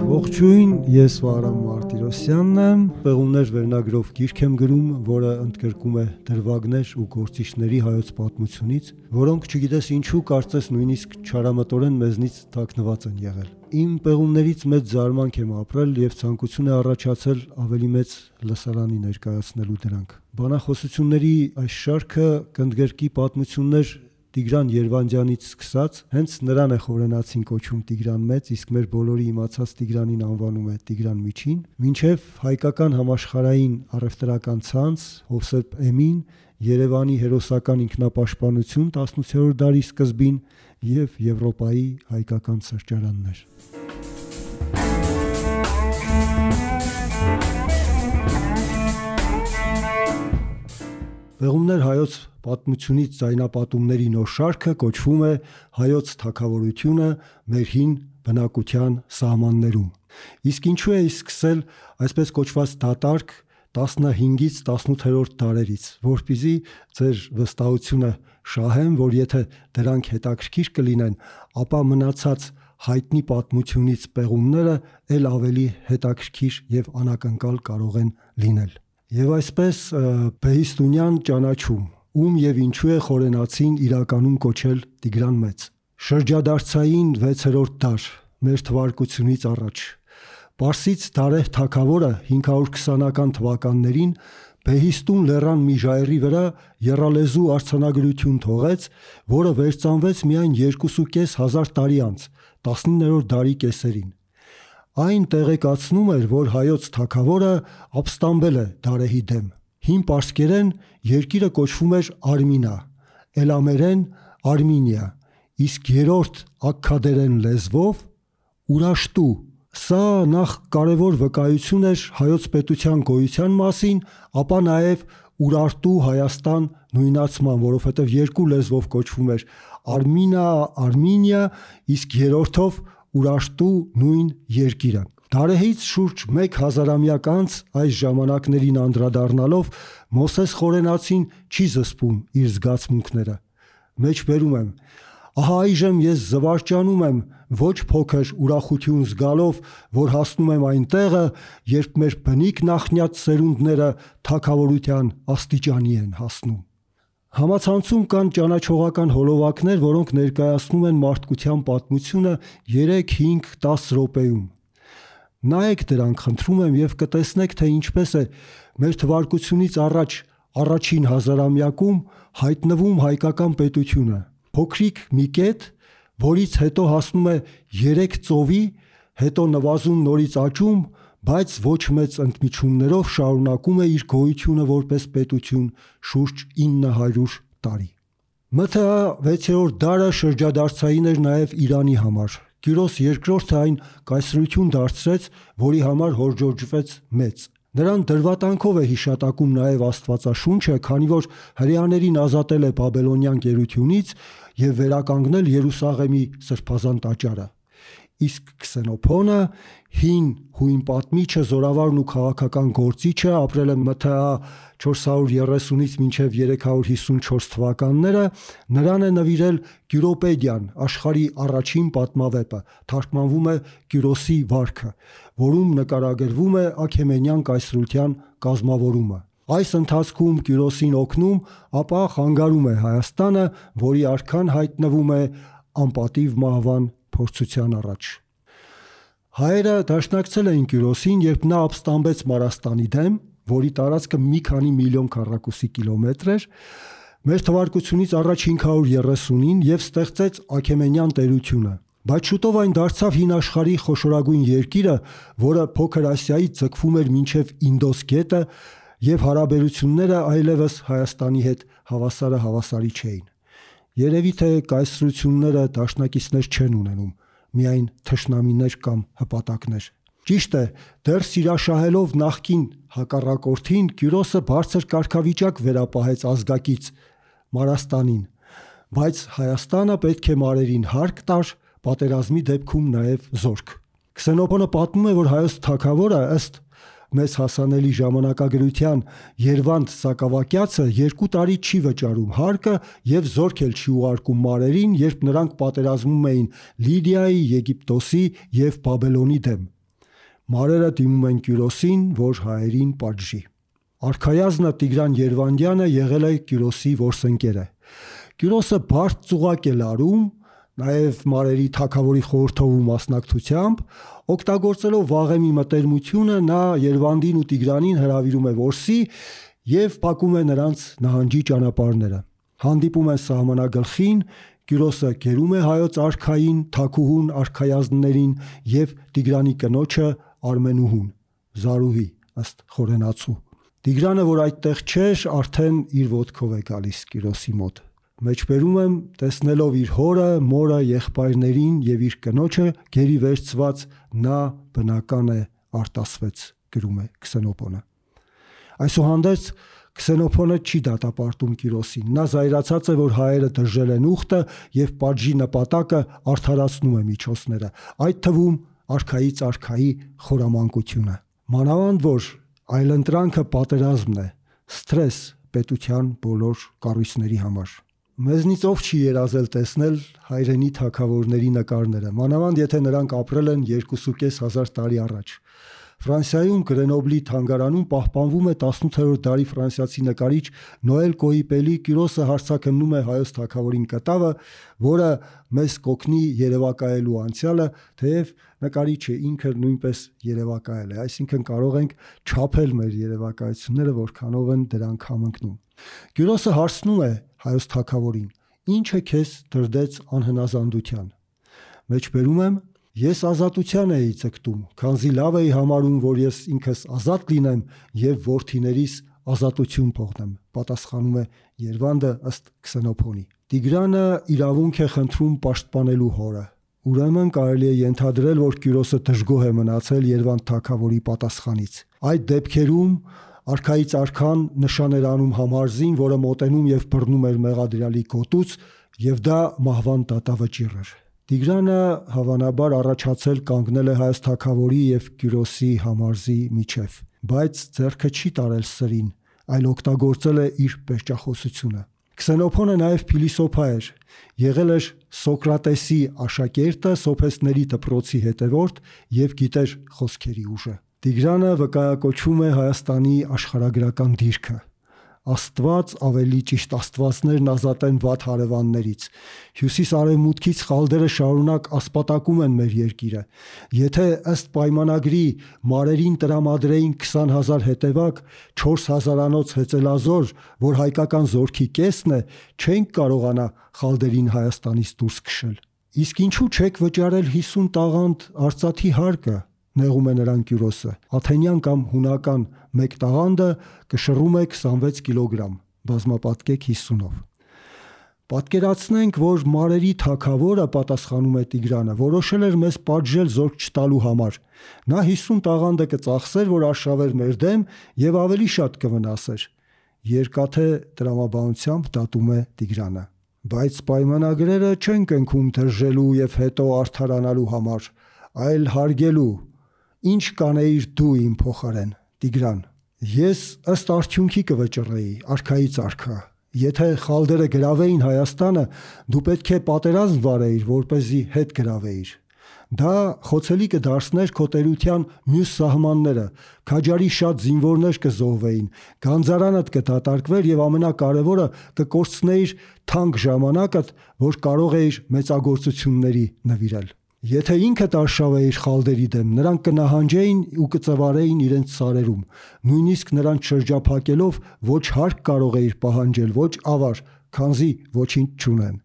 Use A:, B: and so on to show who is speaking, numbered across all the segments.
A: Ողջույն, ես Վահրամ Մարտիրոսյանն եմ, Պեղումներ վերնագրով գիրք եմ գրում, որը ընդգրկում է դրվագներ ու գործիչների հայոց պատմությունից, որոնք չգիտես ինչու կարծես նույնիսկ չարամտորեն մեզնից թաքնված են եղել։ Իմ պեղումներից մեծ զարմանք եմ ապրել եւ ցանկություն է առաջացել ավելի մեծ լսարանի ներկայացնելու դրանք։ Բանախոսությունների այս շարքը կընդգրկի պատմություններ Տիգրան Երվանդյանից սկսած, հենց նրան է խորենացին կոչում Տիգրան Մեծ, իսկ մեր բոլորի իմացած Տիգրանին անվանում է Տիգրան Միջին, մինչև հայկական համաշխարհային առևտրական ցանց, Հովսեփ Էմին, Երևանի հերոսական ինքնապաշտպանություն 18-րդ դարի սկզբին եւ Եվրոպայի հայկական սրճարաններ։ Պեղումներ հայոց պատմությունից ձայնապատումների նոր շարքը կոչվում է Հայոց թագավորությունը մեր հին բնակության սահմաններում։ Իսկ ինչու է սկսել այսպես կոչված դատարկ 15-ից 18-րդ դարերից, որպեսզի ձեր վստահությունը շահեմ, որ եթե դրանք հետաքրքիր կլինեն, ապա մնացած հայտնի պատմությունից պեղումները ել ավելի հետաքրքիր եւ անակնկալ կարող են լինել։ Եվ այսպես Բեհիստունյան ճանաչում, ում եւ ինչու է խորենացին իրականում կոչել Տիգրան Մեծ։ Շրջադարձային 6-րդ դար մեր թվարկությունից առաջ Պարսից Դարեհ թագավորը 520-ական թվականներին Բեհիստուն լեռան մի ժայռի վրա եռալեզու արձանագրություն թողեց, որը վերծանվեց միայն 2.500 տարի անց, 19-րդ դարի կեսերին։ Այն տեղեկացնում էր, որ հայոց թագավորը ապստամբել է Դարեհի դեմ։ Հին պարսկերեն երկիրը կոչվում էր Արմինա, էլամերեն Արմինիա, իսկ երրորդ աքքադերեն լեզվով Ուրաշտու։ Սա նախ կարևոր վկայություն էր հայոց պետության գոյության մասին, ապա նաև Ուրարտու Հայաստան նույնացման, որովհետև երկու լեզվով կոչվում էր Արմինա, Արմինիա, իսկ երրորդով Ուրաշտու նույն երկիրը։ Դարեհից շուրջ 1000-ամյակ անց այս ժամանակներին անդրադառնալով Մոսես Խորենացին չի զսպում իր զգացմունքները։ Մեջբերում եմ. ահա այժմ ես զվարճանում եմ ոչ փոքր ուրախություն զգալով, որ հասնում եմ այն տեղը, երբ մեր բնիկ նախնյաց սերունդները թագավորության աստիճանի են հասնում։ Համացանցում կան ճանաչողական հոլովակներ, որոնք ներկայացնում են մարդկության պատմությունը 3, 5, 10 րոպեում։ Նայեք դրանք, խնդրում եմ, եւ կտեսնեք, թե ինչպես է մեր թվարկությունից առաջ առաջին հազարամյակում հայտնվում հայկական պետությունը։ Փոքրիկ մի կետ, որից հետո հասնում է 3 ծովի, հետո նվազում նորից աճում, բայց ոչ մեծ ընդմիջումներով շարունակում է իր գոյությունը որպես պետություն շուրջ 900 տարի։ ՄԹԱ 6-րդ դարը շրջադարձային էր նաև Իրանի համար։ Կյուրոս II-ը այն կայսրություն դարձրեց, որի համար հորդորջվեց մեծ։ Նրան դրվատանքով է հիշատակում նաև Աստվածաշունչը, քանի որ հրեաներին ազատել է բաբելոնյան գերությունից եւ վերականգնել Երուսաղեմի սրբազան տաճարը։ Իսկ Քսենոփոնը, հին հույն պատմիչը, զորավարն ու քաղաքական գործիչը, ապրել է ՄԹԱ 430-ից մինչև 354 թվականները, նրան է նվիրել Կյուրոպեդիան, աշխարհի առաջին պատմավեպը, թարգմանվում է Կյուրոսի վարքը, որում նկարագրվում է Աքեմենյան կայսրության կազմավորումը։ Այս ընթացքում Կյուրոսին օգնում, ապա խանգարում է Հայաստանը, որի արքան հայտնվում է անպատիվ մահվան փորձության առաջ։ Հայերը դաշնակցել էին Կյուրոսին, երբ նա ապստամբեց Մարաստանի դեմ, որի տարածքը մի քանի միլիոն քառակուսի կիլոմետր էր, մեր թվարկությունից առաջ 530-ին եւ ստեղծեց Աքեմենյան տերությունը։ Բայց շուտով այն դարձավ հին աշխարհի խոշորագույն երկիրը, որը Փոքր Ասիայից ձգվում էր մինչև Ինդոս գետը, եւ հարաբերությունները այլևս Հայաստանի հետ հավասարի չէին։ Երևի թե կայսրությունները դաշնակիցներ չեն ունենում, միայն թշնամիներ կամ հպատակներ։ Ճիշտ է, դեռ սիրաշահելով նախկին հակառակորդին, Կյուրոսը բարձր կարգավիճակ վերապահեց ազգակից Մարաստանին, բայց Հայաստանը պետք է մարերին հարկ տար, պատերազմի դեպքում նաև զորք։ Քսենոփոնը պատմում է, որ հայոց թագավորը ըստ մեզ հասանելի ժամանակագրության Երվանդ Սակավակյացը 2 տարի չի վճարում հարկը եւ զորք էլ չի ուղարկում մարերին, երբ նրանք պատերազմում էին Լիդիայի, Եգիպտոսի եւ Բաբելոնի դեմ։ Մարերը դիմում են Կյուրոսին, որ հայերին պատժի։ Արքայազնը Տիգրան Երվանդյանը եղել է Կյուրոսի որսընկերը։ Կյուրոսը բարդ ծուղակ է լարում, նաև մարերի թագավորի խորհրդով մասնակցությամբ, օգտագործելով Վաղեմի մտերմությունը, նա Երվանդին ու Տիգրանին հրավիրում է որսի եւ փակում է նրանց նահանջի ճանապարհները։ Հանդիպում են սահմանագլխին, Կյուրոսը գերում է հայոց արքային, թագուհուն արքայազններին եւ Տիգրանի կնոջը Արմենուհուն, Զարուհի, ըստ խորենացու։ Տիգրանը, որ այդտեղ չէր, արդեն իր ոտքով է գալիս Կյուրոսի մոտ։ Մեջբերում եմ, տեսնելով իր հորը, մորը, եղբայրներին եւ իր կնոջը գերի վերցված, նա բնական է արտասվեց, գրում է Քսենոփոնը։ Այսուհանդերձ Քսենոփոնը չի դատապարտում Կյուրոսին։ Նա զայրացած է, որ հայերը դժել են ուխտը եւ պատժի նպատակը արդարացնում է միջոցները, այդ թվում արքայից արքայի խորամանկությունը։ Մանավանդ որ այլընտրանքը պատերազմն է, սթրես պետության բոլոր կառույցների համար։ Մեզնից ով չի երազել տեսնել հայրենի թագավորների նկարները, մանավանդ եթե նրանք ապրել են 2.500 տարի առաջ։ Ֆրանսիայում Գրենոբլի թանգարանում պահպանվում է 18-րդ դարի ֆրանսիացի նկարիչ Նոել Կոիպելի Կյուրոսը հարցաքննում է հայոց թագավորին կտավը, որը մեզ կօգնի երևակայելու անցյալը, թեև նկարիչը ինքը նույնպես երևակայել է, այսինքն կարող ենք չափել մեր երևակայությունները, որքանով են դրանք համընկնում։ Կյուրոսը հարցնում է հայոց թագավորին. «Ինչը քեզ դրդեց անհնազանդության»։ Մեջբերում եմ. «Ես ազատության էի ձգտում, քանզի լավ էի համարում, որ ես ինքս ազատ լինեմ եւ որդիներիս ազատություն փոխեմ», պատասխանում է Երվանդը ըստ Քսենոփոնի։ Տիգրանը իրավունք է խնդրում պաշտպանելու հորը։ Ուրեմն կարելի է ենթադրել, որ Կյուրոսը դժգոհ է մնացել Երվանդ թագավորի պատասխանից։ Այդ դեպքերում արքայից արքան նշան էր անում համարզին, որը մոտենում եւ բռնում էր մեղադրյալի գոտուց, եւ դա մահվան դատավճիռ էր։ Տիգրանը հավանաբար առաջացել կանգնել է հայոց թագավորի եւ Կյուրոսի համարզի միջև, բայց ձեռքը չի տարել սրին, այլ օգտագործել է իր պերճախոսությունը։ Քսենոփոնը նաև փիլիսոփա էր, եղել էր Սոկրատեսի աշակերտը, սոփեստների դպրոցի հետևորդ եւ գիտեր խոսքերի ուժը։ Տիգրանը վկայակոչում է Հայաստանի աշխարհագրական դիրքը։ Աստված, ավելի ճիշտ աստվածներն ազատեն վատ հարևաններից։ Հյուսիս-արևմուտքից խալդերը շարունակ ասպատակում են մեր երկիրը։ Եթե ըստ պայմանագրի մարերին տրամադրեին 20,000 հետևակ, 4,000-անոց հեծելազոր, որ հայկական զորքի կեսն է, չենք կարողանա խալդերին Հայաստանից դուրս քշել։ Իսկ ինչու չեք վճարել 50 տաղանդ արծաթի հարկը, նեղում է նրան Կյուրոսը։ Աթենյան կամ հունական մեկ տաղանդը կշռում է 26 կիլոգրամ, բազմապատկեք 50-ով։ Պատկերացնենք, որ մարերի թագավորը, պատասխանում է Տիգրանը, որոշել էր մեզ պատժել զորք չտալու համար։ Նա 50 տաղանդը կծախսեր, որ արշավեր մեր դեմ եւ ավելի շատ կվնասեր։ Երկաթե տրամաբանությամբ դատում է Տիգրանը։ Բայց պայմանագրերը չեն կնքում դրժելու եւ հետո արդարանալու համար, այլ հարգելու։ Ինչ կանեիր դու իմ փոխարեն, Տիգրան։ Ես ըստ արդյունքի կվճռեի, արքայից արքա։ Եթե խալդերը գրավեին Հայաստանը, դու պետք է պատերազմ վարեիր, որպեսզի հետ գրավեիր։ Դա խոցելի կդարձներ քո տերության մյուս սահմանները, քաջարի շատ զինվորներ կզոհվեին, գանձարանդ կդատարկվեր եւ ամենակարևորը կկորցնեիր թանկ ժամանակդ, որ կարող էիր մեծագործությունների նվիրել։ Եթե ինքդ արշավեիր խալդերի դեմ, նրանք կնահանջեին ու կծվարեին իրենց սարերում, նույնիսկ նրանց շրջափակելով ոչ հարկ կարող էիր պահանջել, ոչ ավար, քանզի ոչինչ չունեն։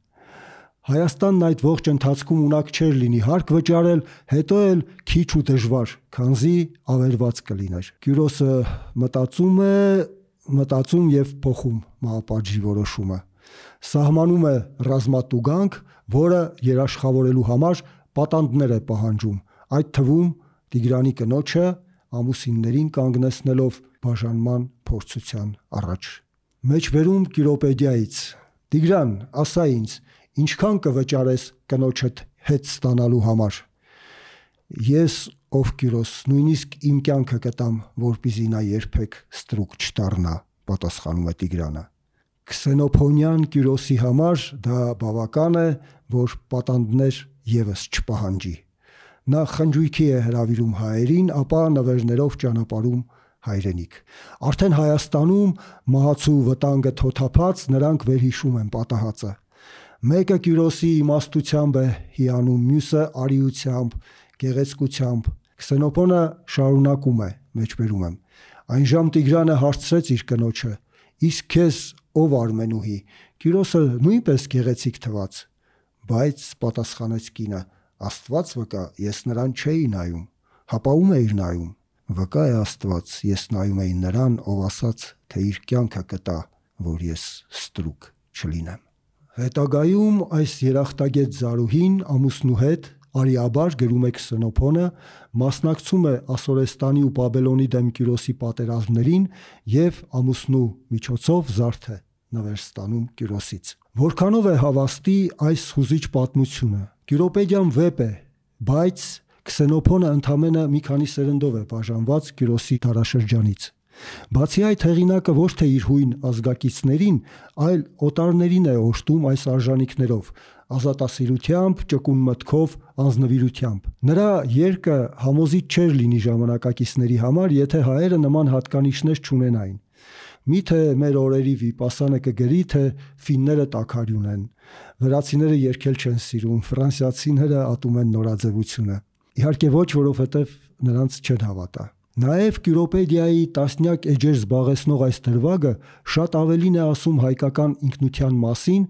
A: Հայաստանն այդ ողջ ընթացքում ունակ չէր լինի հարկ վճարել, հետո էլ քիչ ու դժվար, քանզի ավերված կլիներ։ Կյուրոսը մտածում եւ փոխում մահապատժի որոշումը։ Սահմանում է ռազմատուգանք, որը երաշխավորելու համար պատանդներ է պահանջում, այդ թվում Տիգրանի կնոջը ամուսիններին կանգնեցնելով բաժանման փորձության առաջ։ Մեջբերում Կիրոպեդիայից. Տիգրան, ասա ինձ, ինչքան կվճարես կնոջդ հետ ստանալու համար։ Ես ով Կյուրոս, նույնիսկ իմ կյանքը կտամ, որպեսզի նա երբեք ստրուկ չդառնա, պատասխանում է Տիգրանը։ Քսենոփոնյան Կյուրոսի համար դա բավական է, որ պատանդներ եւս չպահանջի։ Նա խնջույքի է հրավիրում հայերին, ապա նվերներով ճանապարհում հայրենիք։ Արդեն Հայաստանում մահացու վտանգը թոթափած նրանք վերհիշում են պատահածը։ Մեկը Կյուրոսի իմաստությամբ է հիանում, մյուսը արիությամբ, գեղեցկությամբ։ Քսենոփոնը շարունակում է, մեջբերում եմ։ Այնժամ Տիգրանը հարցրեց իր կնոջը. «Իսկ քեզ ով Արմենուհի»։ Կյուրոսը նույնպես գեղեցիկ թվաց։ Բայց պատասխանեց կինը. «Աստված վկա, ես նրան չէի նայում»։ Հապա ում էիր նայում։ Վկա է Աստված, ես նայում էի նրան, ով ասաց, թե իր կյանքը կտա, որ ես ստրուկ չլինեմ։ Հետագայում այս երախտագետ Զարուհին ամուսնու հետ արիաբար, գրում է Քսենոփոնը, մասնակցում է Ասորեստանի ու Բաբելոնի դեմ Կյուրոսի պատերազմներին եւ ամուսնու միջոցով զարդ է նվեր ստանում Կյուրոսից։ Որքանով է հավաստի այս հուզիչ պատմությունը։ Կյուրոպեդիան վեպ է, բայց Քսենոփոնը ընդամենը մի քանի սերնդով է բաժանված Կյուրոսի դարաշրջանից։ Բացի այդ, հեղինակը ոչ թե իր հույն ազգակիցներին, այլ օտարներին է օժտում այս արժանինքներով, ազատասիրությամբ, ճկուն մտքով, անձնվիրությամբ։ Նրա երկը համոզիչ չէր լինի ժամանակակիցների համար, եթե հայերը նման հատկանիշներ չունենային։ Միթե մեր օրերի Վիպասանը կգրի, թե ֆինները տաքարյուն են, վրացիները երգել չեն սիրում, ֆրանսիացիները ատում են նորաձևությունը։ Իհարկե ոչ, որովհետև նրանց չեն հավատա։ Նաև Կյուրոպեդիայի տասնյակ էջեր զբաղեցնող այս դրվագը շատ ավելին է ասում հայկական ինքնության մասին,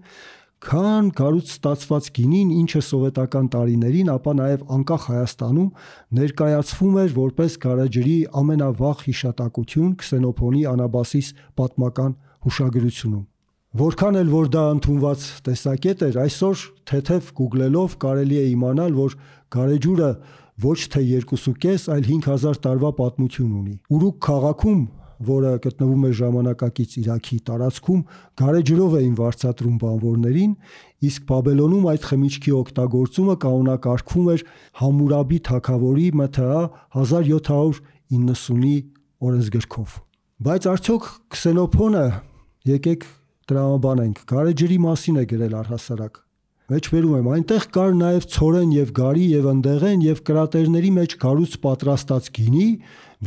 A: քան գարուց ստացված գինին, ինչը սովետական տարիներին, ապա նաև անկախ Հայաստանում ներկայացվում էր որպես գարեջրի ամենավաղ հիշատակություն Քսենոփոնի Անաբասիս պատմական հուշագրությունում։ Որքան էլ որ դա ընդունված տեսակետ էր, այսօր թեթև գուգլելով կարելի է իմանալ, որ գարեջուրը ոչ թե 2.5, այլ 5000 տարվա պատմություն ունի։ Ուրուկ քաղաքում, որը գտնվում է ժամանակակից Իրաքի տարածքում, գարեջրով էին վարձատրում բանվորներին, իսկ Բաբելոնում այդ խմիչքի օգտագործումը կանոնակարգվում էր Համուրաբի թագավորի ՄԹԱ 1790-ի օրենսգրքով։ Բայց արդյոք Քսենոփոնը, եկեք տրամաբանենք, գարեջրի մասին է գրել առհասարակ։ Մեջբերում եմ, այնտեղ կար նաև ցորեն եւ գարի եւ ընդեղեն եւ կրատերների մեջ գարուց պատրաստած գինի,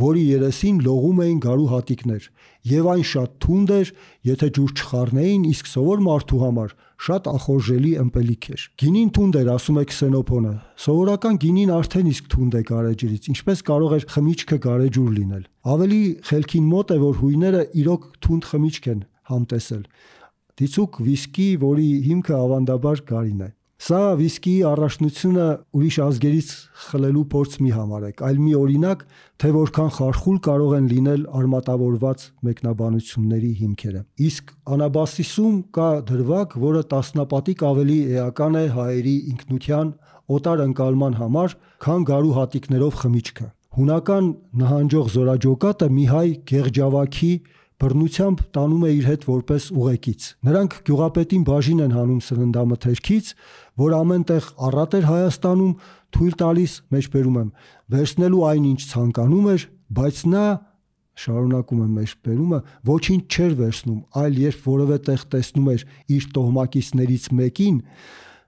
A: որի երեսին լողում էին գարու հատիկներ, եւ այն շատ թունդ էր, եթե ջուր չխառնեին, իսկ սովոր մարդու համար շատ ախորժելի ըմպելիք էր։ Գինին թունդ էր, ասում է Քսենոփոնը։ Սովորական գինին արդեն իսկ թունդ է գարեջրից, ինչպես կարող էր խմիչքը գարեջուր լինել։ Ավելի խելքին մոտ է, որ հույները իրոք թունդ խմիչք են համտեսել։ Դիցուք վիսկի, որի հիմքը ավանդաբար գարին է։ Սա վիսկիի առանձնությունը ուրիշ ազգերից խլելու փորձ մի համարեք, այլ մի օրինակ, թե որքան խարխուլ կարող են լինել արմատավորված մեկնաբանությունների հիմքերը։ Իսկ Անաբասիսում կա դրվագ, որը տասնապատիկ ավելի էական է հայերի ինքնության օտար ընկալման համար, քան գարու հատիկներով խմիչքը։ Հունական նահանջող զորաջոկատը մի հայ գեղջավաքի բռնությամբ տանում է իր հետ որպես ուղեկից։ Նրանք գյուղապետին բաժին են հանում սննդամթերքից, որ ամեն տեղ առատ էր Հայաստանում, թույլ տալիս, մեջբերում եմ, վերցնելու այն, ինչ ցանկանում էր, բայց նա, շարունակում եմ մեջբերումը, ոչինչ չէր վերցնում, այլ երբ որևէ տեղ տեսնում էր իր տոհմակիցներից մեկին,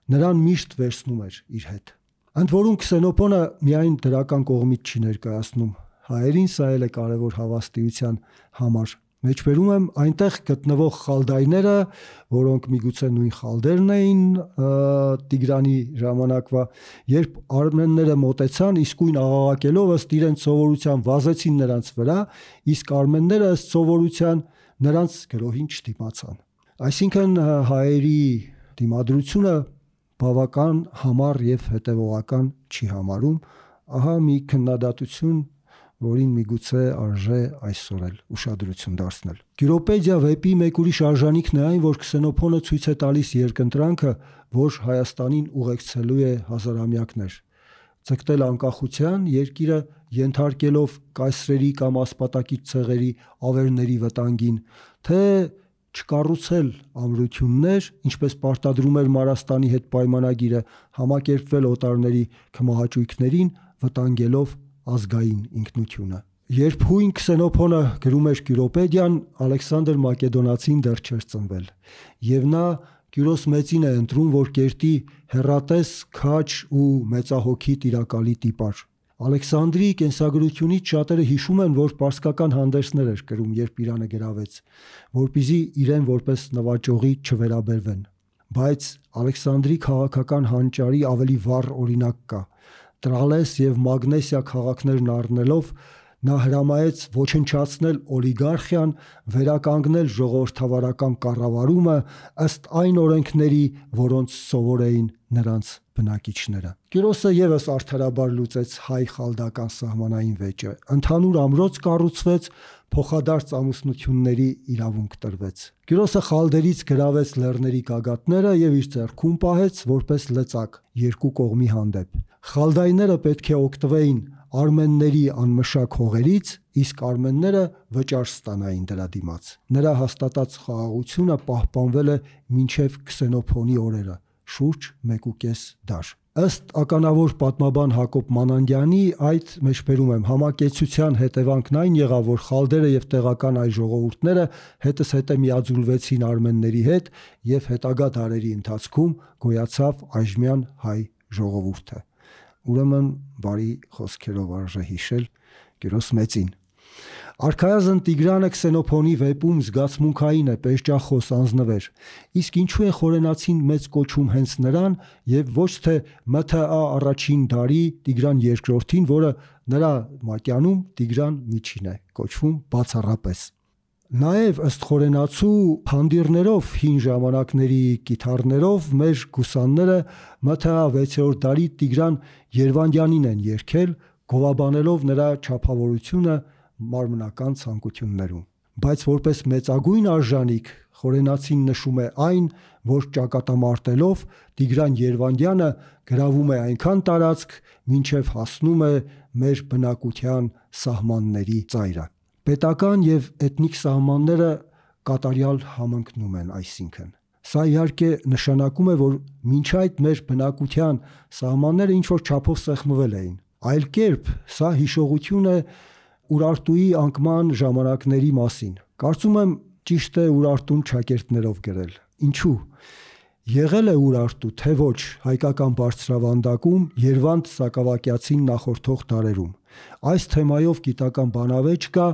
A: նրան միշտ վերցնում էր իր հետ։ Ընդ որում Քսենոփոնը միայն դրական կողմից չի ներկայացնում, հայերին սա էլ է կարևոր հավաստիության համար։ Մեջբերում եմ, այնտեղ գտնվող խալդայները, որոնք միգուցե նույն խալդերն էին Տիգրանի ժամանակվա, երբ արմենները մոտեցան, իսկույն աղաղակելով ըստ իրենց սովորության վազեցին նրանց վրա, իսկ արմենները ըստ սովորության նրանց գրոհին չդիմացան։ Այսինքն հայերի դիմադրությունը բավական համառ եւ հետեւողական չի համարում, ահա մի քննադատություն, որին միգուցե արժե այսօր էլ ուշադրություն դարձնել։ Կյուրոպեդիա վեպի մեկ ուրիշ արժանինքն է այն, որ Քսենոփոնը ցույց է տալիս երկընտրանքը, որ Հայաստանին ուղեկցելու է հազարամյակներ։ Ձգտել անկախության, երկիրը ենթարկելով կայսրերի կամ ասպատակից ցեղերի ավերների վտանգին, թե չկառուցել ամրություններ, ինչպես պարտադրում էր Մարաստանի հետ պայմանագիրը, համակերպվել օտարների քմահաճույքներին, վտանգելով ազգային ինքնությունը։ Երբ հույն Քսենոփոնը գրում էր Կյուրոպեդիան, Ալեքսանդր Մակեդոնացին դեռ չէր ծնվել, եւ նա Կյուրոս մեծին է ընտրում, որ կերտի հեռատես, քաջ ու մեծահոգի տիրակալի տիպար։ Ալեքսանդրի կենսագրությունից շատերը հիշում են, որ պարսկական հանդերձներ էր կրում, երբ Իրանը գրավեց, որպեսզի իրեն որպես նվաճողի չվերաբերվեն։ Բայց Ալեքսանդրի քաղաքական հանճարի ավելի վառ օրինակ կա։ Տրալես եւ Մագնեսիա քաղաքներն առնելով նա հրամայեց ոչնչացնել օլիգարխիան, վերականգնել ժողովրդավարական կառավարումը ըստ այն օրենքների, որոնց սովոր էին նրանց բնակիչները։ Կյուրոսը եւս արդարաբար լուծեց հայ-խալդական սահմանային վեճը։ Ընդհանուր ամրոց կառուցվեց, փոխադարձ ամուսնությունների իրավունք տրվեց։ Կյուրոսը խալդերից գրավեց լեռների գագաթները եւ իր ձեռքում պահեց որպես լծակ երկու կողմի հանդեպ։ Խալդայները պետք է օգտվեին արմենների անմշակ հողերից, իսկ արմենները վճար ստանային դրա դիմաց։ Նրա հաստատած խաղաղությունը պահպանվել է մինչև Քսենոփոնի օրերը, շուրջ 1.5 դար։ Ըստ ականավոր պատմաբան Հակոբ Մանանդյանի, այդ մեջբերում եմ, համակեցության հետևանքն այն եղավ, որ խալդերը եւ տեղական այլ ժողովուրդները հետզհետե միաձուլվեցին արմենների հետ եւ հետագա դարերի ընթացքում գոյացավ այժմյան հայ ժողովուրդը։ Ուրեմն բարի խոսքերով արժե հիշել Կյուրոս մեծին։ Արքայազն Տիգրանը Քսենոփոնի վեպում զգացմունքային է, պերճախոս, անձնվեր։ Իսկ ինչու է խորենացին մեծ կոչում հենց նրան եւ ոչ թե ՄԹԱ առաջին դարի Տիգրան II-ին, որը նրա մատյանում Տիգրան միջին է կոչվում բացառապես։ Նաև ըստ խորենացու փանդիրներով հին ժամանակների կիթառներով մեր գուսանները ՄԹԱ 6-րդ դարի Տիգրան Երվանդյանին են երգել, գովաբանելով նրա չափավորությունը մարմնական ցանկություններում։ Բայց որպես մեծագույն արժանիք խորենացին նշում է այն, որ ճակատամարտելով Տիգրան Երվանդյանը գրավում է այնքան տարածք, մինչև հասնում է մեր բնակության սահմանների ծայրը։ Պետական եւ էթնիկ սահմանները կատարյալ համընկնում են, այսինքն սա իհարկե նշանակում է, որ մինչ այդ մեր բնակության սահմանները ինչ-որ չափով սեղմվել էին։ Այլ կերպ սա հիշողություն է Ուրարտուի անկման ժամանակների մասին։ Կարծում եմ ճիշտ է Ուրարտուն ճակերտներով գրել։ Ինչու՞։ Եղել է Ուրարտու, թե ոչ, հայկական բարձրավանդակում Երվանդ Սակավակյացին նախորդող դարերում։ Այս թեմայով գիտական բանավեճ կա,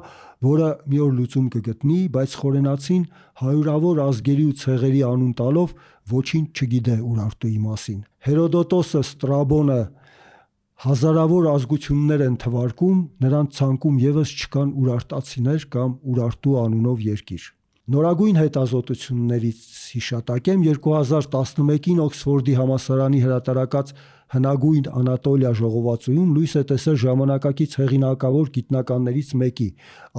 A: որը մի օր լուծում կգտնի, բայց խորենացին հարյուրավոր ազգերի ու ցեղերի անուն տալով ոչինչ չգիտե Ուրարտուի մասին։ Հերոդոտոսը, Ստրաբոնը հազարավոր ազգություններ են թվարկում, նրանց ցանկում եւս չկան ուրարտացիներ կամ Ուրարտու անունով երկիր։ Նորագույն հետազոտություններից հիշատակեմ 2011-ին Օքսֆորդի համալսարանի հրատարակած հնագույն Անատոլիա ժողովածուում լույս է տեսել ժամանակակից հեղինակավոր գիտնականներից մեկի,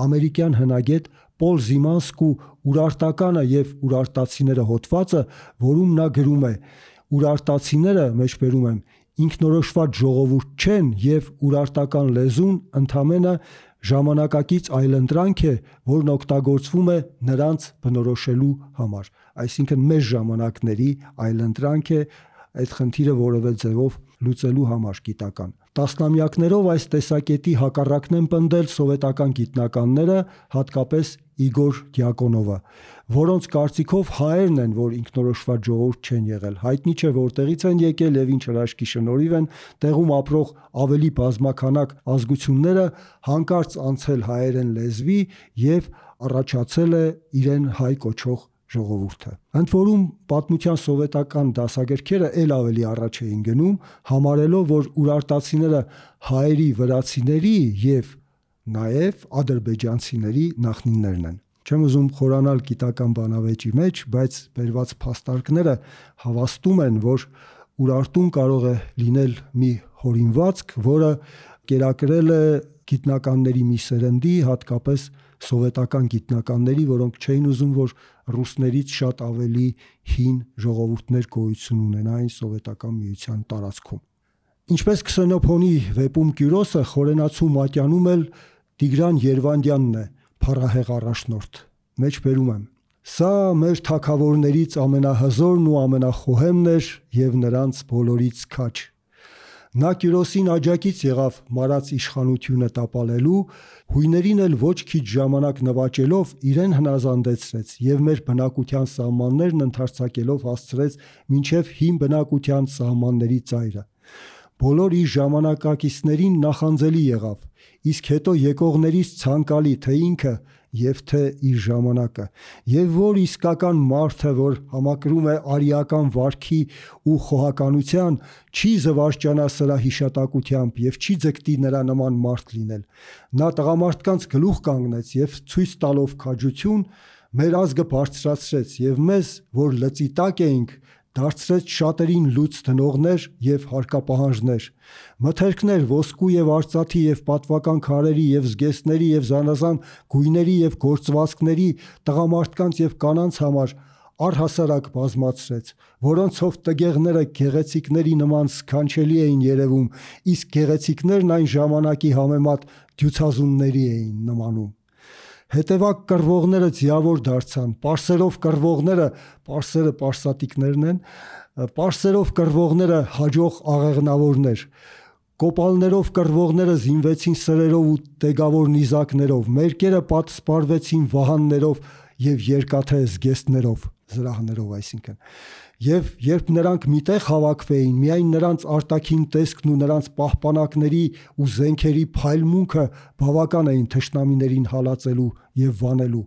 A: ամերիկյան հնագետ Պոլ Զիմանսկու «Ուրարտականը եւ ուրարտացիները» հոդվածը, որում նա գրում է. «Ուրարտացիները, մեջբերում եմ, ինքնորոշված ժողովուրդ չեն եւ ուրարտական լեզուն ընդամենը ժամանակակից այլընտրանք է, որն օգտագործվում է նրանց բնորոշելու համար»։ Այսինքն մեր ժամանակների այլընտրանք է այդ խնդիրը որևէ ձևով լուծելու համար գիտական։ Տասնամյակներով այս տեսակետի հակառակն են պնդել սովետական գիտնականները, հատկապես Իգոր Դյակոնովը, որոնց կարծիքով հայերն են, որ ինքնորոշված ժողովուրդ չեն եղել։ Հայտնի չէ որտեղից են եկել եւ ինչ հրաշքի շնորհիվ են տեղում ապրող ավելի բազմաքանակ ազգությունները հանկարծ անցել հայերեն լեզվի եւ առաջացել է իրեն հայ կոչող ժողովուրդը։ Ընդ որում պատմության սովետական դասագրքերը ել ավելի առաջ էին գնում, համարելով, որ ուրարտացիները հայերի, վրացիների եւ նաեւ ադրբեջանցիների նախնիներն են։ Չեմ ուզում խորանալ գիտական բանավեճի մեջ, բայց բերված փաստարկները հավաստում են, որ Ուրարտուն կարող է լինել մի հորինվածք, որը կերակրել է գիտնականների մի սերնդի, հատկապես սովետական գիտնականների, որոնք չէին ուզում, որ ռուսներից շատ ավելի հին ժողովուրդներ գոյություն ունենային սովետական միության տարածքում։ Ինչպես Քսենոփոնի վեպում Կյուրոսը, խորենացու մատյանում էլ Տիգրան Երվանդյանն է փառահեղ առաջնորդ։ Մեջբերում եմ. «Սա մեր թագավորներից ամենահզորն ու ամենախոհեմն էր եւ նրանց բոլորից քաջ։ Նա Կյուրոսին աջակից եղավ մարած իշխանությունը տապալելու, հույներին էլ ոչ քիչ ժամանակ նվաճելով իրեն հնազանդեցրեց և մեր բնակության սահմաններն ընդարձակելով հասցրեց մինչև հին բնակության սահմանների ծայրը։ Բոլոր իր ժամանակակիցներին նախանձելի եղավ, իսկ հետո եկողներից ցանկալի թե ինքը և թե իր ժամանակը, և որ իսկական մարդը, որ համակրում է արիական վարքի ու խոհականության, չի զվարճանա սրա հիշատակությամբ և չի ձգտի նրա նման մարդ լինել։ Նա տղամարդկանց գլուխ կանգնեց և ցույց տալով քաջություն մեր ազգը բարձրացրեց և մեզ, որ լծի տակ էինք, դարձրեց շատերին լուծ դնողներ և հարկապահանջներ, մթերքներ ոսկու և արծաթի և պատվական քարերի և զգեստների և զանազան գույների և գործվածքների տղամարդկանց և կանանց համար առհասարակ բազմացրեց, որոնցով տգեղները գեղեցիկների նման սքանչելի էին երևում, իսկ գեղեցիկներն այն ժամանակի համեմատ դյուցազունների էին նմանում։ Հետևակ կռվողները ձիավոր դարձան, պարսերով կռվողները, պարսերը պարսատիկներն են, պարսերով կռվողները հաջող աղեղնավորներ, կոպալներով կռվողները զինվեցին սրերով ու տեգավոր նիզակներով, մերկերը պատսպարվեցին վահաններով և երկաթե զգեստներով, զրահներով այսինքն։ Եվ երբ նրանք մի տեղ հավաքվեին, միայն նրանց արտաքին տեսքն ու նրանց պահպանակների ու զենքերի փայլմունքը բավական էին թշնամիներին հալածելու և վանելու։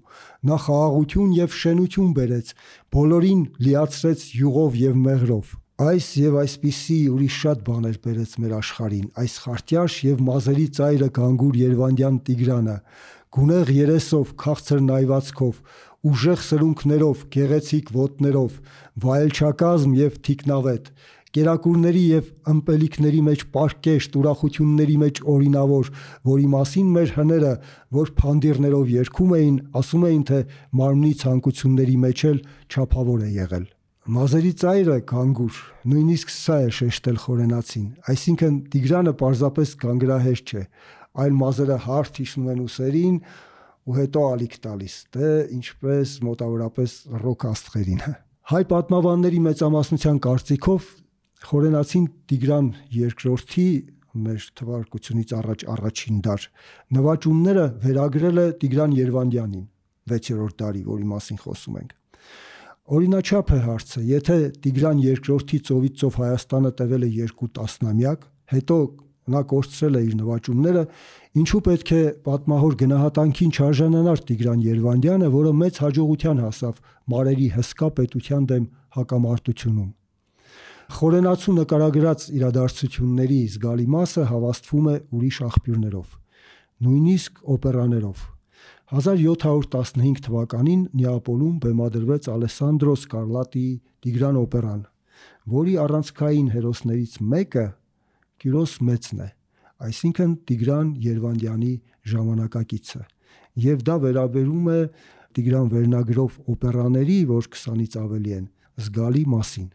A: Նա խաղաղություն և շենություն բերեց, բոլորին լիացրեց յուղով և մեղրով։ Այս և այսպիսի ուրիշ շատ բաներ բերեց մեր աշխարհին այս խարտյաշ և մազերի ծայրը գանգուր Երևանդյան Տիգրանը, գունեղ երեսով, քաղցր նայվածքով, ուժեղ սրունքներով, գեղեցիկ ոտներով, վայելչակազմ և թիկնավետ, կերակուրների և ըմպելիքների մեջ պարկեշտ, ուրախությունների մեջ օրինավոր, որի մասին մեր հները, որ փանդիրներով երգում էին, ասում էին, թե մարմնի ցանկությունների մեջ էլ չափավոր է եղել։ Մազերի ծայրը գանգուր, նույնիսկ սա է շեշտել խորենացին, այսինքն Տիգրանը պարզապես գանգրահեշտ չէ, այլ մազերը հարթ հիշում են ուսերին ու հետո ալիք տալիս, դե ինչպես մոտավորապես ռոք աստղերին։ Հայ պատմաբանների մեծամասնության կարծիքով խորենացին Տիգրան II-ի մեր թվարկությունից առաջ առաջին դար նվաճումները վերագրել է Տիգրան Երվանդյանին, 6-րդ դարի, որի մասին խոսում ենք։ Օրինաչափ է հարցը, եթե Տիգրան II-ի ծովից ծով Հայաստանը տևել է 2 տասնամյակ, հետո նա կորցրել է իր նվաճումները, ինչու պետք է պատմահոր գնահատանքին չարժանանար Տիգրան Երվանդյանը, որը մեծ հաջողության հասավ մարերի հսկա պետության դեմ հակամարտությունում։ Խորենացու նկարագրած իրադարձությունների զգալի մասը հավաստվում է ուրիշ աղբյուրներով, նույնիսկ օպերաներով։ 1715 թվականին Նեապոլում բեմադրվեց Ալեսանդրո Սկարլատիի Տիգրան օպերան, որի առանցքային հերոսներից մեկը Կյուրոս Մեծն է, այսինքն Տիգրան Երվանդյանի ժամանակակիցը, և դա վերաբերում է Տիգրան վերնագրով օպերաների, որ 20-ից ավելի են, զգալի մասին։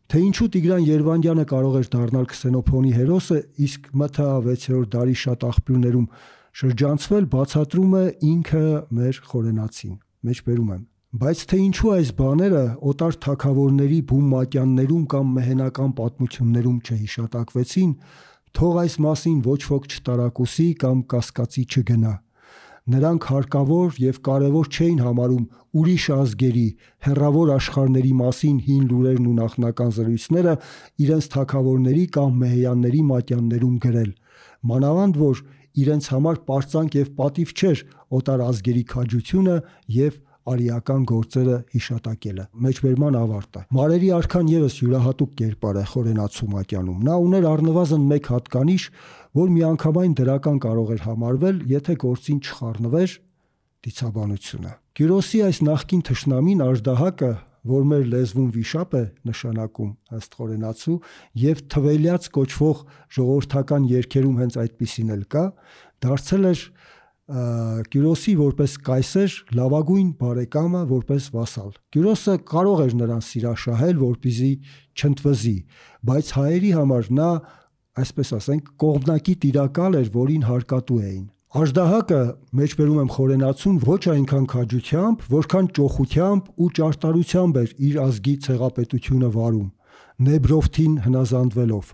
A: Թե ինչու Տիգրան Երվանդյանը կարող էր դառնալ Քսենոփոնի հերոսը, իսկ ՄԹԱ 6-րդ դարի շատ աղբյուրներում շրջանցվել, բացատրում է ինքը մեր խորենացին, մեջբերում եմ։ Բայց թե ինչու այս բաները օտար թագավորների բում մատյաններում կամ մեհենական պատմություններում չհիշատակվեցին, թող այս մասին ոչ ոք չտարակուսի կամ կասկածի չգնա։ Նրանք հարկավոր և կարևոր չէին համարում ուրիշ ազգերի, հեռավոր աշխարհների մասին հին լուրերն ու նախնական զրույցները իրենց թագավորների կամ մեհեյանների մատյաններում գրել, մանավանդ որ իրենց համար պարծանք և պատիվ չէր օտար ազգերի քաջությունը և արիական գործերը հիշատակելը։ Մեջբերման ավարտը։ Մարերի արքան ևս յուրահատուկ կերպար է խորենացու մատյանում։ Նա ուներ առնվազն մեկ հատկանիշ, որ միանգամայն դրական կարող էր համարվել, եթե գործին չխառնվեր դիցաբանությունը։ Կյուրոսի այս նախկին թշնամին Աժդահակը, որ մեր լեզվում վիշապ է նշանակում ըստ խորենացու, և Թվելյաց կոչվող ժողովրդական երգերում հենց այդպիսին էլ կա, դարձել էր Կյուրոսի որպես կայսեր լավագույն բարեկամը, որպես վասալ։ Կյուրոսը կարող էր նրան սիրաշահել, որպեսզի չընդվզի, բայց հայերի համար նա, այսպես ասենք, կողմնակի տիրակալ էր, որին հարկատու էին։ Աժդահակը, մեջբերում եմ խորենացուն, ոչ այնքան քաջությամբ, որքան ճոխությամբ ու ճարտարությամբ էր իր ազգի ցեղապետությունը վարում։ Նեբրովթին հնազանդվելով,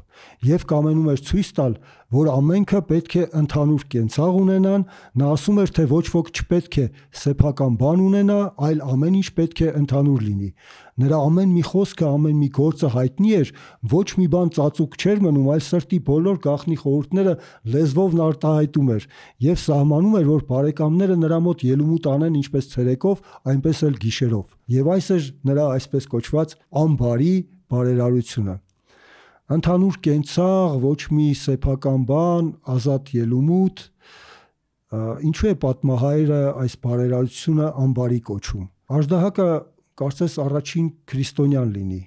A: եւ կամենում էր ցույց տալ, որ ամենքը պետք է ընդհանուր կենցաղ ունենան, նա ասում էր, թե ոչ ոք չպետք է սեփական բան ունենա, այլ ամեն ինչ պետք է ընդհանուր լինի։ Նրա ամեն մի խոսքը, ամեն մի գործը հայտնի էր, ոչ մի բան ծածուկ չէր մնում, այլ սրտի բոլոր գաղտնի խորհուրդները լեզվով արտահայտում էր եւ սահմանում էր, որ բարեկամները նրա մոտ ելումուտ անեն ինչպես ցերեկով, այնպես էլ գիշերով։ Եվ այս էր նրա այսպես կոչված անբարի բարերարությունը։ Ընդհանուր կենցաղ, ոչ մի սեփական բան, ազատ ելումուտ, ինչու է պատմահայրը այս բարերարությունը անբարի կոչում։ Աժդահակը կարծես առաջին քրիստոնյան լինի։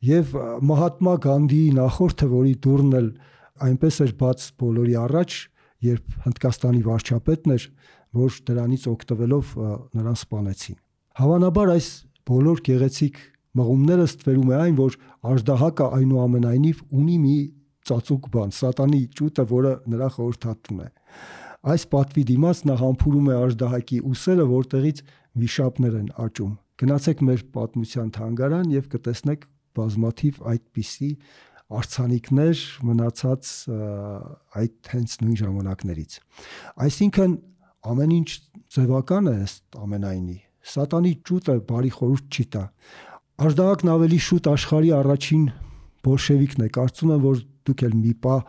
A: Եվ Մահատմա Գանդիի նախորդը, որի դուռն էլ այնպես էր բաց բոլորի առաջ, երբ Հնդկաստանի վարչապետն էր, որ դրանից օգտվելով նրան սպանեցին։ Հավանաբար այս բոլոր գեղեցիկ մղումները ստվերում է այն, որ Աժդահակը այնուամենայնիվ ունի մի ծածուկ բան, սատանի ճուտը, որը նրա խորհրդատուն է։ Այս պատվի դիմաց նա համբուրում է Աժդահակի ուսերը, որտեղից վիշապներ են աճում։ Գնացեք մեր պատմության թանգարան եւ կտեսնեք բազմաթիվ այդպիսի արձանիկներ մնացած այդ հենց նույն ժամանակներից։ Այսինքն ամեն ինչ ձևական է ըստ ամենայնի։ Սատանի ճուտը բարի խորհուրդ չի տա։ Աժդահակն ավելի շուտ աշխարհի առաջին բոլշևիկն է։ Կարծում եմ, որ դուք էլ մի պահ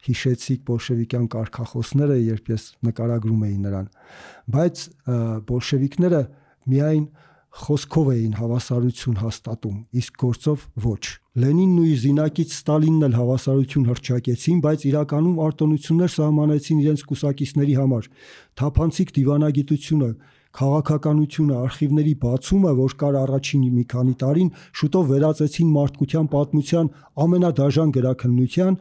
A: հիշեցիք բոլշևիկյան կարգախոսները, երբ ես նկարագրում էի նրան։ Բայց բոլշևիկները միայն խոսքով էին հավասարություն հաստատում, իսկ գործով ոչ։ Լենինն ու իր զինակից Ստալինն էլ հավասարություն հռչակեցին, բայց իրականում արտոնություններ սահմանեցին իրենց կուսակիցների համար։ Թափանցիկ դիվանագիտությունը, քաղաքականությունը, արխիվների բացումը, որ կար առաջին մի քանի տարին, շուտով վերածեցին մարդկության պատմության ամենադաժան գրաքննության,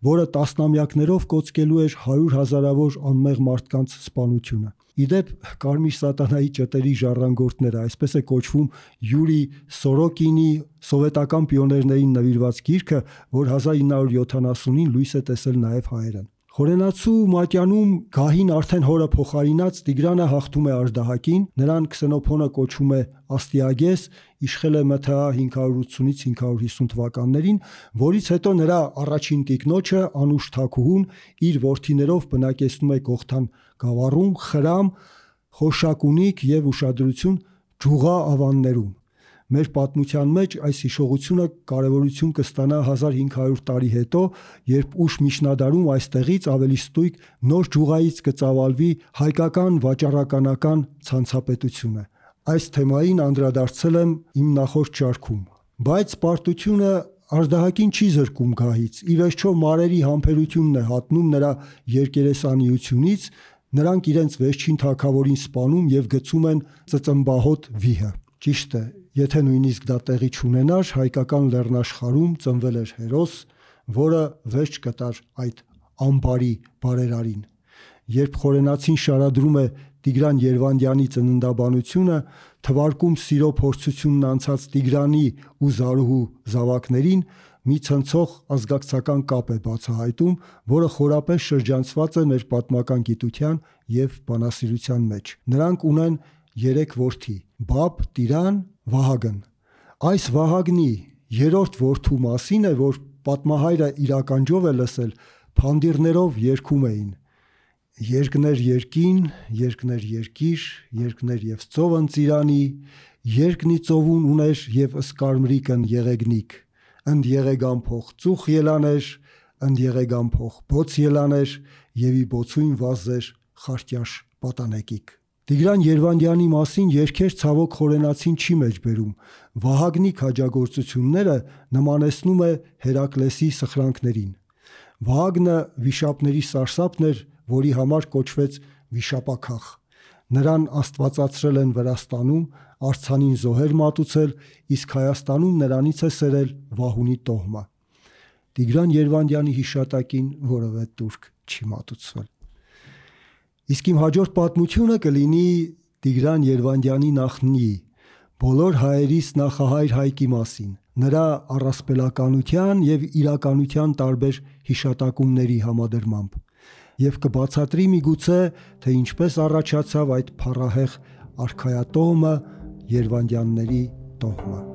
A: որը տասնամյակներով կոծկելու էր 100,000-ավոր անմեղ մարդկանց սպանությունը։ Իդեպ Կարմիր սատանայի ճտերի ժառանգորդները, այսպես է կոչվում Յուրի Սորոկինի սովետական պիոներներին նվիրված գիրքը, որ 1970-ին լույս է տեսել նաև հայերեն։ Խորենացու մատյանում գահին արդեն հորը փոխարինած Տիգրանը հաղթում է Աժդահակին, նրան Քսենոփոնը կոչում է Աստիագես, իշխել է ՄԹԱ 580-ից 550 թվականներին, որից հետո նրա առաջին տիկնոջը Անուշ Թագուհուն իր որդիներով բնակեցնում է Գողթան գավառում, Խրամ, Խորշակունիկ եւ ուշադրություն Ջուղա ավաններում։ Մեր պատմության մեջ այս հիշողությունը կարևորություն կստանա 1500 տարի հետո, երբ ուշ միջնադարում այստեղից ավելի ստույգ նոր Ջուղայից կծավալվի հայկական վաճառականական ցանցապետությունը։ Այս թեմային անդրադարձել եմ իմ նախորդ շարքում։ Բայց պարտությունը Աժդահակին չի զրկում գահից։ Ի վերջո մարերի համբերությունն է հատնում նրա երկերեսանիությունից, նրանք իրենց վերջին թագավորին սպանում եւ գցում են ծծմբահոտ վիհը։ Ճիշտ է, եթե նույնիսկ դա տեղի չունենար, հայկական լեռնաշխարհում ծնվել էր հերոս, որը վերջ կտար այդ անբարի բարերարին։ Երբ Խորենացին շարադրում է Տիգրան Երվանդյանի ծննդաբանությունը, թվարկում սիրո փորձությունն անցած Տիգրանի ու Զարուհու զավակներին, մի ցնցող ազգակցական կապ է բացահայտում, որը խորապես շրջանցված է մեր պատմական գիտության եւ բանասիրության մեջ։ Նրանք ունեն 3 որդի՝ Բաբ, Տիրան, Վահագն։ Այս Վահագնի երրորդ որդու մասին է, որ պատմահայրը իր ականջով է լսել, փանդիրներով երգում էին. Երկներ երկին, երկներ երկիր, երկներ եւ ծովն ծիրանի, երկնի ծովուն ուներ եւ ըսկարմրիկն եղեգնիկ, ընդ եղեգան փող ծուխ ելաներ, ընդ եղեգան փող բոց ելաներ, եւ ի բոցույն վազեր խարտյաշ պատանեկիկ։ Տիգրան Երվանդյանի մասին երգեր ցավոք Խորենացին չի մեջբերում։ Վահագնի քաջագործությունները նմանեցնում է Հերակլեսի սխրանքներին։ Վահագնը վիշապների սարսափն էր, որի համար կոչվեց վիշապաքաղ։ Նրան աստվածացրել են Վրաստանում, արձանին զոհեր մատուցել, իսկ Հայաստանում նրանից է սերել Վահունի տոհմը։ Տիգրան Երվանդյանի հիշատակին որևէ տուրք չի մատուցվել։ Իսկ իմ հաջորդ պատմությունը կլինի Տիգրան Երվանդյանի նախնի, բոլոր հայերիս նախահայր Հայկի մասին, նրա առասպելականության եւ իրականության տարբեր հիշատակումների համադրմամբ, եւ կբացատրի միգուցե, թե ինչպես առաջացավ այդ փառահեղ արքայատոհմը Երվանդյանների տոհմը։